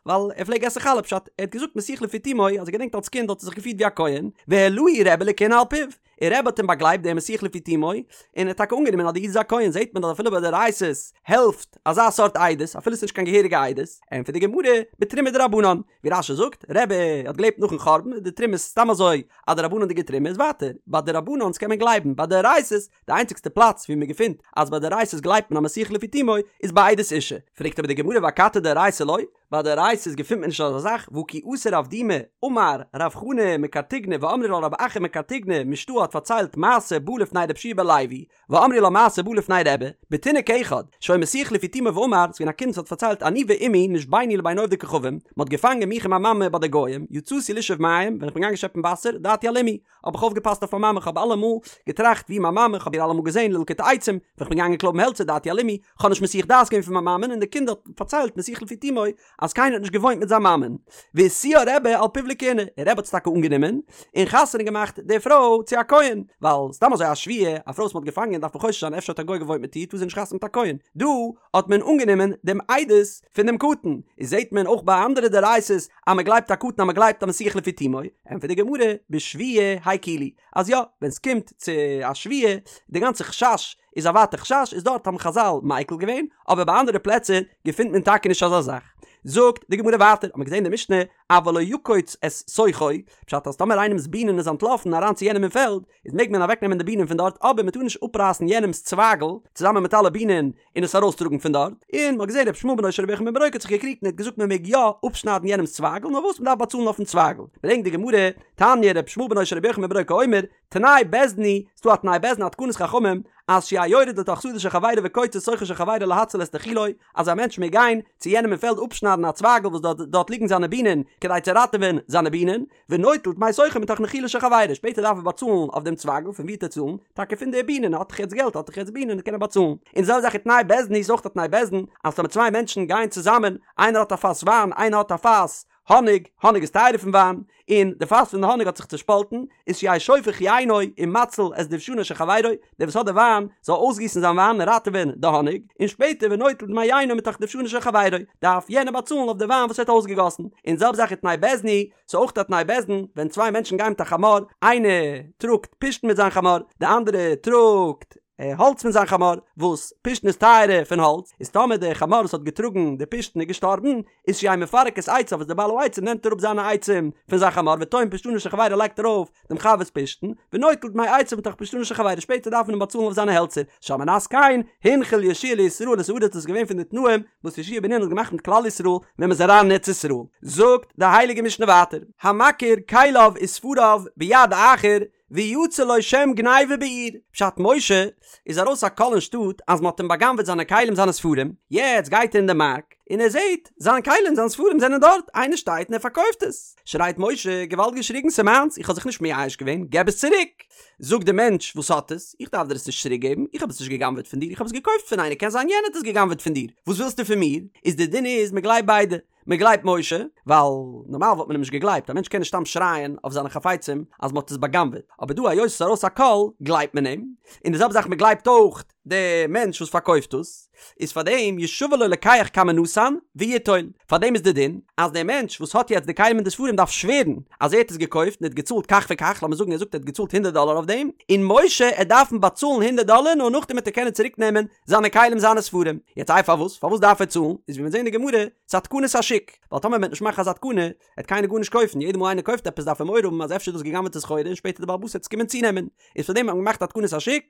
ווייל ער פלעג עסן חלה פשט ער האט געזאגט משיח לפי תומו אז ער געדענקט אלס קינד האט ער זיך געפירט ווי א כהן והעלהו רבי לכהונה על פיו און רבי האט אים באגלייבט דער משיח לפי תומו, און ער האט טאקע אנגענומען אז די איד איז א כהן, זעט מען אז אפילו ביי דאורייתא'ס העלפט אזא סארט עדות, אפילו עס איז נישט קיין געהעריגע עדות, ענטפערט די גמרא, בתרומה דרבנן, ווי רש"י זאגט, רבי האט געלעבט נאכן חורבן, איז די תרומה סתם אזוי א דרבנן'דיגע תרומה, איז ווייטער, ביי דרבנן'ס קען מען גלייבן, ביי דאורייתא'ס, די איינציגסטע פלאץ ווי מען געפינט אז ביי דאורייתא'ס גלייבט מען א משיח לפי תומו, איז ביי עדות אישה, פרעגט אבער די גמרא ואכתי דאורייתא לא? ביי דאורייתא'ס געפינט מען נישט אזא זאך, והא כי אתא רב דימי, אמר רב חנא מקרטיגנא ואמרי לה רב אחא מקרטיגנא משתעי האט פארציילט מעשה בא לפני רבי יהושע בן לוי, ואמרי לה מעשה בא לפני רבי, בתינוק אחד, שהיה מסיח לפי תומו ואמר, ס'געווען א קינד וואס האט פארציילט אני ואמי נשבינו לבין עובדי כוכבים, מ'האט געפאנגען מיך און מיין מאמע ביי די גוים, יצאתי לשאוב מים, ווען איך בין געגאנגען שעפן וואסער, דעתי על אמי, האב איך אויפגעפאסט אויף מיין מאמע, כ'האב אלעמאל געטראכט ווי מיין מאמע, כ'האב איר אלעמאל געזען ללקוט עצים, ווען כ'בין געגאנגען קלויבן העלצער דעתי על אמי, כ'האב נישט מסיח דעת געווען פון מיין מאמען און די קינד האט פארציילט מסיח לפי תומו אז קיינער האט נישט געוואוינט מיט זיין מאמען. והשיאה רבי על פיו לכהונה, און רבי האט עס טאקע אנגענומען, און חתונה געמאכט די פרוי צו א כהן, ווייל סתם אזוי א שבויה, א פרוי וואס מ'האט געפאנגען דארף מען חושש זיין אפשר האט א גוי געוואוינט מיט איר טאר זי נישט חתונה מיט א כהן, דא האט מען אנגענומען דעם עדות פון דעם קטן, איז זעט מען אויך ביי אנדערע דאורייתא'ס אז מ'גלייבט א קטן אז מ'גלייבט א מסיח לפי תומו, ענטפערט די גמרא, בשבויה הקילו, אז יא, ווען ס'קומט צו א שבויה, די גאנצע חשש איז א ווייטע חשש, איז דארט האבן חזל מיקל געווען, אבער ביי אנדערע פלעצער געפינט מען טאקע נישט אזא זאך. זאגט די גמרא ווייטער, האט מען געזען די משנה, אבל לא יקוץ את שוכו, פשט אז טאמער איינעמס בינען איז אנטלאפן אריין צו יענעם אין פעלד, איז מעג מען אוועקנעמען די בינען פון דארט, אבער מען טאר נישט אפרייסן יענעמס צווייגל צוזאמען מיט אלע בינען און עס ארויסטראגן פון דארט, און מען האט געזען רבי ישמעאל בנו של רבי יוחנן בן ברוקה האט זיך געקריגט און ער האט געזאגט מען מעג יא אפשניידן יענעמס צווייגל נאר וואס מען דארף באצאלן אויפן צווייגל, ברענגט די גמרא, תניא רבי ישמעאל בנו של רבי יוחנן בן ברוקה אומר, תנאי בית דין הוא, ס'דא א תנאי בית דין א תקנת חכמים, אז שיהא יורד לתוך שדה של חברו וקוצץ שוכו של חברו להציל את נחילו, אז א מענטש מעג גיין צו יענעם אין פעלד אפשניידן א צווייגל וואס דארט דארט ליגן זיינע בינען כדי צו ראטעווען זיינע בינען, ונוטל דמי שוכו מתוך נחילו של חברו, שפעטער דארף ער באצאלן אויף דעם צווייגל, פון ווי וועט ער צאלן? טאקע פון די בינען, האט דאך יעצט געלט, האט דאך יעצט בינען, קען ער באצאלן. און די זעלבע זאך ותנאי בית דין הוא איז אויך א תנאי בית דין, אז טאמער צוויי מענטשן גייען צוזאמען, איינער האט א פאס וויין, איינער האט א פאס האניג, האניג איז טייערער פון וויין, און די פאס פון די האניג האט זיך צושפאלטן, איז שיהא שופך יינו ומציל את דובשנו של חברו, דער וואס האט די וויין זאל אויסגיסן זיין וויין און ראטעווען די האניג, און שפעטער ונוטל דמי יינו מתוך דובשנו של חברו, דארף יענער באצאלן אויף די וויין וואס ער האט אויסגעגאסן. און די זעלבע זאך ותנאי בית דין הוא, ס'איז אויך א תנאי בית דין, ווען צוויי מענטשן גייען מיט א חמור, איינער טראגט פשתן מיט זיין חמור, די אנדערע טראגט האלץ מיט זיין חמור, וואס פשתן איז טייערער פון האלץ, איז טאמער דער חמור וואס האט געטראגן די פשתן איז געשטארבן, איז שיהא מפרק את עציו וואס דער בעל העצים נעמט אראפ זיינע עצים פון זיין חמור וטוען פשתנו של חברו לייגט ארויף דעם חבר'ס פשתן, ונוטל דמי עציו מתוך פשתנו של חברו שפעטער דארף מען אים באצאלן אויף זיינע העלצער, שעל מנת כן הנחיל יהושע לישראל את הארץ דאס איז געווען פון די תנאים וואס יהושע בן נון האט געמאכט מיט כלל ישראל ווען מען איז אריין אין ארץ ישראל, זאגט די הייליגע משנה ווייטער, המכיר כליו וספריו ביד אחר ויצא לו שם גניבה בעיר, פשט משה איז ארויס א קול אין שטאט אז מען האט אים בא'גנב'עט זיינע כלים זיינע ספרים, יעצט גייט ער אין די מארק און ער זעט זיין כלים זיין ספרים זענען דארט, איינער שטייט און ער פארקויפט עס, שרייט משה געוואלד געשריגן ס'מיינס איך האב זיך נישט מייאש געווען געב עס צוריק, זאגט די מענטש וואס האט עס, איך דארף דיר עס נישט צוריק געבן, איך האב עס נישט גע'גנב'עט פון דיר איך האב עס געקויפט פון איינער קען זיין יענער האט עס גע'גנב'עט פון דיר, וואס ווילסטו פון מיר, איז די דין איז מען גלייבט ביידע. מען גלייבט משה, ווייל נארמאל וואלט מען אים נישט געגלייבט, א מענטש קען נישט סתם שרייען אויף זיינע חפצים אז מען האט עס בא'גנב'עט, אבער דא היות עס איז ארויס א קול גלייבט מען אים, און די זעלבע זאך מען גלייבט אויך די מענטש וואס פארקויפט עס, איז פאר דעם ישבע לו לוקח כמה נתן ויטול, פאר דעם איז די דין אז דער מענטש וואס האט יעצט די כלים און די ספרים דארף שווערן אז ער האט עס געקויפט און ער האט געצאלט כך וכך, לאמיר זאגן ער זאגט ער האט געצאלט הונדערט דאלער אויף דעם, און משה עט דארפן באצאלן הונדערט דאלער נאר נאכדעם וועט ער קענען צוריק נעמען זיינע כלים זיינע ספרים, יעצט איי פארוואס? פארוואס דארף ער צאלן? איז ווי מיר זעהן אין די גמרא, ס'איז א תקנת השוק, ווייל טאמער מ'וועט נישט מאכן אזא תקנה, וועט קיינער גארנישט קויפן, יעדע מאל איינער קויפט עפעס דארף ער מורא האבן אז אפשר איז דאס גע'גנב'עטע סחורה און שפעטער די בעל הבית וועט עס קומען צונעמען, איז פאר דעם האט מען געמאכט א תקנת השוק,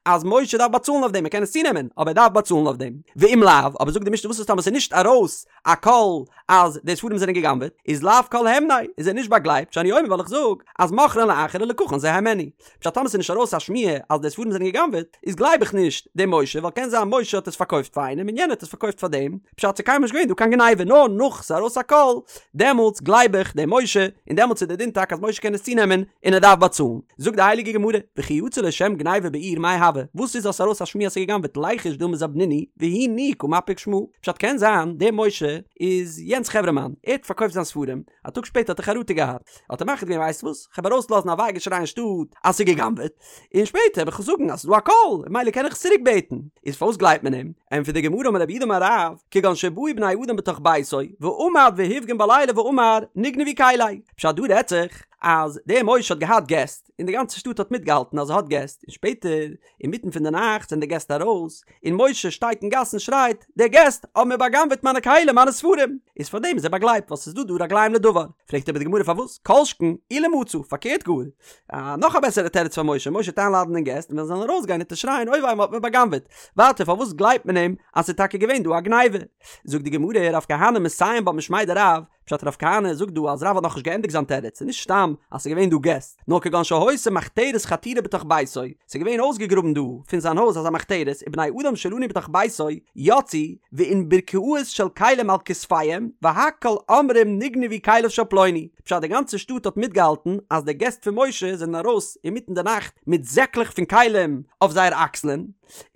אז משה דארף באצאלן אויף דעם, ער קען עס צונעמען, אבער ער דארף באצאלן אויף דעם. ואם לאו, אבער זאגט די משנה וואס איז טאמער ס'איז נישט ארויס א קול אז די ספרים זענען גע'גנב'עט, איז לאו כל הימניה, איז ער נישט באגלייבט, שאני אומר ווייל איך זאג אז מכרן לאחר ולקחן זה הימנו. פשט טאמער ס'איז נישט ארויס א שמועה אז די ספרים זענען גע'גנב'עט, איז גלייב איך נישט דעם משה, ווייל קען זיין משה האט עס פארקויפט פאר איינעם און יענער האט עס פארקויפט פאר דעם, פשט ס'איז קיינמאל נישט געווען דא קיין גניבה, נאר נאך ס'איז ארויס א קול, דעמאלטס גלייב איך דעם משה, און דעמאלטס איז דער דין טאקע אז משה קען עס צונעמען און ער דארף באצאלן. זאגט די הייליגע גמרא, וכי יצא לו שם גניבה בעיר מאי הוי, וואס איז אז ס'איז ארויס א שמועה אז ס'איז גע'גנב'עט ליחוש דילמא זבנינהו והוא ניהו קא מפיק שמא, פשט קען זיין דער משה איז יענץ חברה מאן, ער האט פארקויפט זיין ספרים, א טאג שפעטער האט ער חרטה געהאט, האט ער מחליט געווען ווייסט וואס, כ'וועל ארויסלאזן א וויי געשריי אין שטאט אז ס'איז גע'גנב'עט, און שפעטער וועל איך זאגן אז ס'איז דא א קול, ממילא קען איך עס צוריק בעטן. איז פארוואס גלייבט מען אים? ענטפערט די גמרא אמר רב יהודה אמר רב, כגון שבאו בני אדם בתוך ביתו, ועמד והפגין בלילה ואמר נגנבו כלי. פשט דא רעדט זיך אז דער משה האט געהאט געסט, און די גאנצע שטאט האט מיטגעהאלטן אז ער האט געסט, און שפעטער אינמיטן פון די נאכט זענען די געסט ארויס, און משה שטייט אין גאס און שרייט, די געסט האבן מיר בא'גנב'עט מיינע כלים, מיינע ספרים! איז פאר דעם איז ער באגלייבט, ווייל ס'איז דא דא רגליים לדבר. פרעגט אבער די גמרא פארוואס? כל שכן אילו מצא, פארקערט גאר. א נאך א בעסערע תירוץ פאר משה, משה וועט איינלאדענען געסט, און ווען זיי זאלן ארויסגיין וועט ער שרייען אוי וויי מ'האט מיר בא'גנב'עט. ווייטער פארוואס גלייבט מען אים אז ס'איז טאקע געווען דא א גניבה? זאגט די גמרא, רב כהנא מסיים בה משמיה דרב, פשט רב כהנא זאגט דא אז רב האט נאכנישט געענדיגט זיין תירוץ, ס'איז נישט סתם אז ס'איז געווען דא געסט, נאר כגון שהיתה מחתרת חתורה בתוך ביתו, ס'איז געווען אויסגעגראבן דא פון זיין הויז אזא מחתרת ובני אדם שלנו בתוך ביתו יצאו ואונברקאות של כלים על כתפיהם והכל אומרים נגנבו כליו של פלוני, פשט די גאנצע שטאט האט מיטגעהאלטן אז די געסט פון משה זענען ארויס אינמיטן די נאכט מיט זעקלעך פון כלים אויף זייער אקסלען,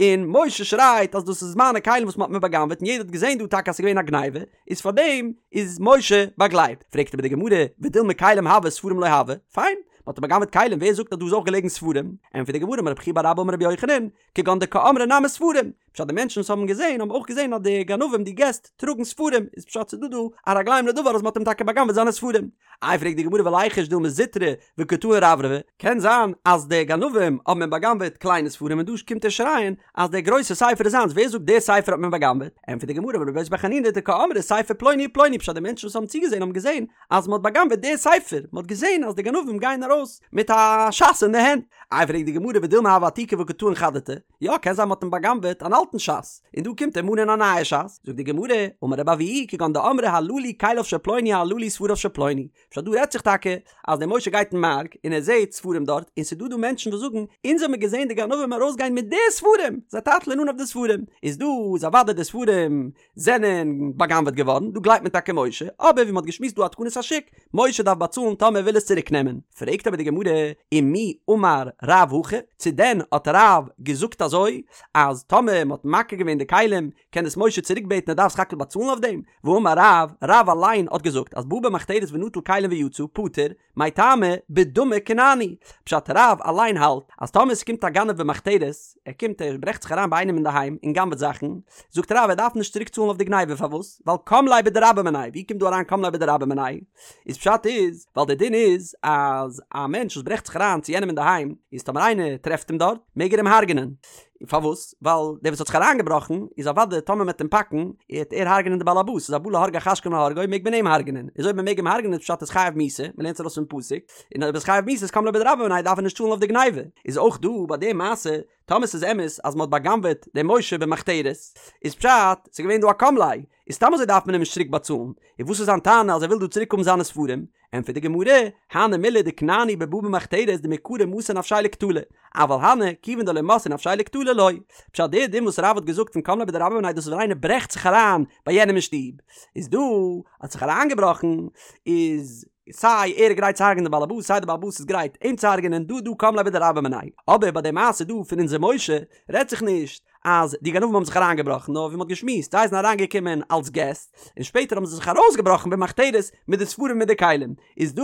און משה שרייט אז דאס איז מיינע כלים וואס מ'האט מיר בא'גנב'עט און יעדער האט געזען דא טאקע אז ס'איז געווען א גניבה, איז פאר דעם איז משה באגלייבט. פרעגט אבער די גמרא, ודילמא כלים הוו ספרים לא הוו, פיין, מ'האט אים בא'גנב'עט כלים, ווער זאגט אז דא איז אויך געלעגן ספרים? ענטפערט די גמרא, אמר רב חייא בר אבא אמר רבי יוחנן, כגון דקאמרי נמי ספרים, פשט די מענטשן וואס האבן געזען האבן אויך געזען אז די גנבים די געסט טראגן ספרים, איז פשט ס'איז דא דא א רגליים לדבר אז מ'האט אים טאקע בא'גנב'עט זיינע ספרים. איי פרעגט די גמרא וליחוש דילמא זוטרי וקא טעין רברבי, קען זיין אז די גנבים האבן אים בא'גנב'עט קליינע ספרים און דא קומט ער שרייען אז דער גרויסע ספר איז זיינס, ווער זאגט דער ספר האט מען בא'גנב'עט? ענטפערט די גמרא אמר רבי יוסי בר חנינא דקאמרי ספר פלוני ופלוני פשט די מענטשן וואס האבן צוגעזען האבן געזען אז מען האט בא'גנב'עט דער ספר, מען האט געזען אז די גנבים גייען ארויס מיט א ש"ס אין די הענט. איי פרעגט די גמרא ודילמא הוה עתיקא וקא טעין חדתי, יא קען זיין מען האט אים בא'גנב'עט אן אלטן ש"ס און דא קומט ער מאנען א נייע ש"ס, זאגט די גמרא אמר רבי אבהו כגון דאמרי הללו כליו של פלוני הללו ספריו של פלוני, פשט דא רעדט זיך טאקע אז דער משה גייט אין מארק און ער זעהט ספרים דארט און ס'דא דא מענטשן וואס זאגן אונז האמיר געזעהן די גנבים ארויסגיין מיט די ספרים זיי טייטלען אן אויף די ספרים איז דא איז אוודאי די ספרים זענען בא'גנב'עט געווארן דא גלייבט מען טאקע משה אבער ווי מ'האט געשמועסט דא א תקנת השוק משה דארף באצאלן טאמער ער וויל עס צוריק נעמען פרעגט אבער די גמרא ומי אמר רב הכי צו דען האט רב געזאגט אזוי אז טאמער מ'האט מכיר געווען די כלים קען עס משה צוריק בעטן ער דארף סך הכל באצאלן אויף דעם? והאמר רב, רב אליין האט געזאגט אז בא במחתרת ונטל כלים ויצא, פטור, מאי טעמא, בדמי כנעני. פשט רב אליין האלט אז טאמער ס'קומט א גנב במחתרת, ער קומט ער ברעכט זיך אריין ביי איינעם אינדערהיים און גנב'ט זאכן, זאגט רב ער דארף נישט צוריק צאלן אויף די גניבה פארוואס? ווייל קם ליה בדרבה מיניה, ווי קומט דא אריין קם ליה בדרבה מיניה? איז פשט איז ווייל דער דין איז אז א מענטש וואס ברעכט זיך אריין צו יענעם אינדערהיים איז טאמער איינער טרעפט אים דארט מעג ער אים הרג'נען, פארוואס? ווייל דער וואס האט זיך אריינגעבראכן איז אוודאי טאמער מ'עט אים פאקן עט ער הרג'נען די בעל הבית, איז הבא להורגך השכם להורגו מעג מען אים הרג'נען, איז אויב מ'מעג אים הרג'נען איז פשט איז חייב מיתה, מ'לערנט עס ארויס פון פסוק, און אויב איז חייב מיתה איז קם ליה בדרבה מיניה דארף ער נישט צאלן אויף די גניבה, איז אויך דא ביי די מעשה טאמער ס'איז אמת אז מ'האט בא'גנב'עט דעם משה במחתרת איז פשט ס'איז געווען דא א קם ליה, איז סתם אזוי דארף מען אים נישט צוריק באצאלן, און וואס איז זיין טענה אז ער וויל דא צוריק האבן זיינע ספרים? ענטפערט די גמרא, הני מילי דכנעני בבא במחתרת דמעיקרא מסר נפשיה לקטלא, אבל הני כיוון דלא מסר נפשיה לקטלא לא. פשט דער דין וואס רב האט געזאגט פון קם ליה בדרבה מיניה דאס איז ווען איינער ברעכט זיך אריין ביי יענעם אין שטוב, איז דא האט זיך אריינגעבראכן איז סיי ער איז גרייט צו הרג'נען די בעל הבית סיי די בעל הבית איז גרייט אים צו הרג'נען דא דא קם ליה בדרבה מיניה, אבער ביי די מעשה דא פון אונזער משה רעדט זיך נישט אז די גנבים האבן זיך אריינגעבראכן נאר ווי מ'האט געשמועסט זיי זענען אריינגעקומען אלס געסט און שפעטער האבן זיי זיך ארויסגעבראכן במחתרת מיט די ספרים מיט די כלים איז דא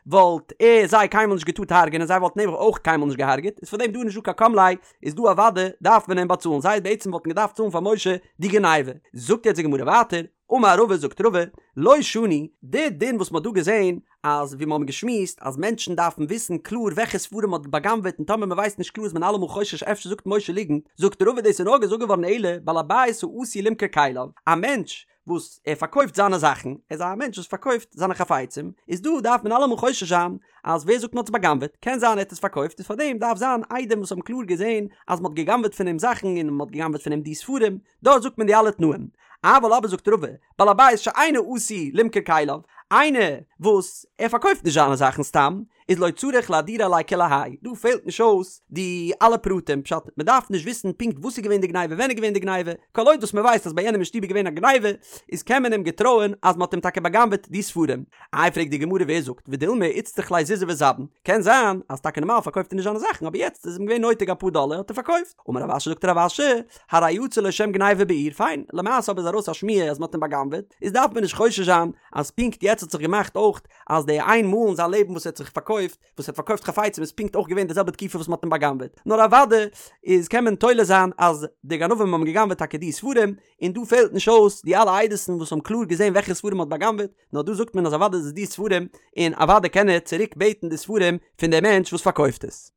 וואלט ער זיי קיינמאל נישט געטארט הרג'ענען זיי וואלטן אים אויך קיינמאל נישט געהארגעט איז פארדעם דא נישט דא קיין קם ליה איז דא אוודאי דארף מען אים באצאלן זיי בעצם וואלטן געדארפט צאלן פאר משה די גניבה זאגט יעצט די גמרא ווייטער אמר רבא זאגט רבא, לא שנו, די דין וואס מ'האט דא געזען, אז ווי מ'האבן געשמועסט אז מענטשן דארפן וויסן קלאר וועלכע ספרים מ'האט בא'גנב'עט און טאמער מ'ווייסט נישט קלאר איז מען אלעמאל חושש אפשר זאגט משה ליגנט, זאגט רבא דאס איז נאר געזאגט געווארן אלא בעל הבית העשוי למכור כליו, א מענטש וואס ער פארקויפט זיינע זאכן, ער איז א מענטש וואס פארקויפט זיינע חפצים, איז דא דארף מען אלעמאל חושש זיין אז ווער זאגט מ'האט עס בא'גנב'עט, קען זיין ער האט עס פארקויפט איז פארדעם דארף זיין עדים וואס האבן קלאר געזען אז מ'האט גע'גנב'עט פון אים זאכן און מ'האט גע'גנב'עט פון אים די ספרים, דארט זאגט מען די אלע תנאים. אבל אבער זאגט רבא, בעל הבית שאינו עשוי למכור כליו, איינער וואס ער פארקויפט נישט זיינע זאכן סתם, איז לא צריך לאהדורי עליה כולי האי, דא פעלט נישט אויס די אלע פרטים, פשט, מען דארף נישט וויסן פונקט וואס איז געווען די גניבה ווען איז געווען די גניבה, כל עוד וואס מען ווייסט אז ביי יענעם אין שטוב איז געווען א גניבה, איז קען מען אים געטרויען אז מען האט אים טאקע בא'גנב'עט די ספרים. איי פרעגט די גמרא ווער זאגט, ודילמא איצטריך ליה זוזי וזבין, קען זיין אז טאקע נארמאל פארקויפט ער נישט זיינע זאכן אבער יעצט איז אים געווען נויטיג אפאר דאלער האט ער פארקויפט, אמר רב אשי זאגט רב אשי, הרי יצא לו שם גניבה בעיר, פיין, למעשה אבער איז ארויס א שמועה אז מ'האט אים בא'גנב'עט, איז דארף מען נישט חושש זיין אז פונקט יעצט האט זיך געמאכט אויך אז די איין מאל אין זיין לעבן וואס ער האט זיך פארקויפט. פארקויפט, וואס ער האט פארקויפט חפצים איז פונקט אויך געווען די זעלבע תקופה וואס מען האט אים בא'גנב'עט, נאר אוודאי איז קען מען תולה זיין אז די גנבים האבן גע'גנב'עט טאקע די ספרים, און דא פעלט נישט אויס די אלע עדות'ן וואס האבן קלאר געזען וועלכע ספרים מען האט בא'גנב'עט, נאר דא זאגט מען אז אוודאי איז עס די ספרים, און אוודאי קען ער צוריק בעטן די ספרים פון די מענטש וואס פארקויפט עס.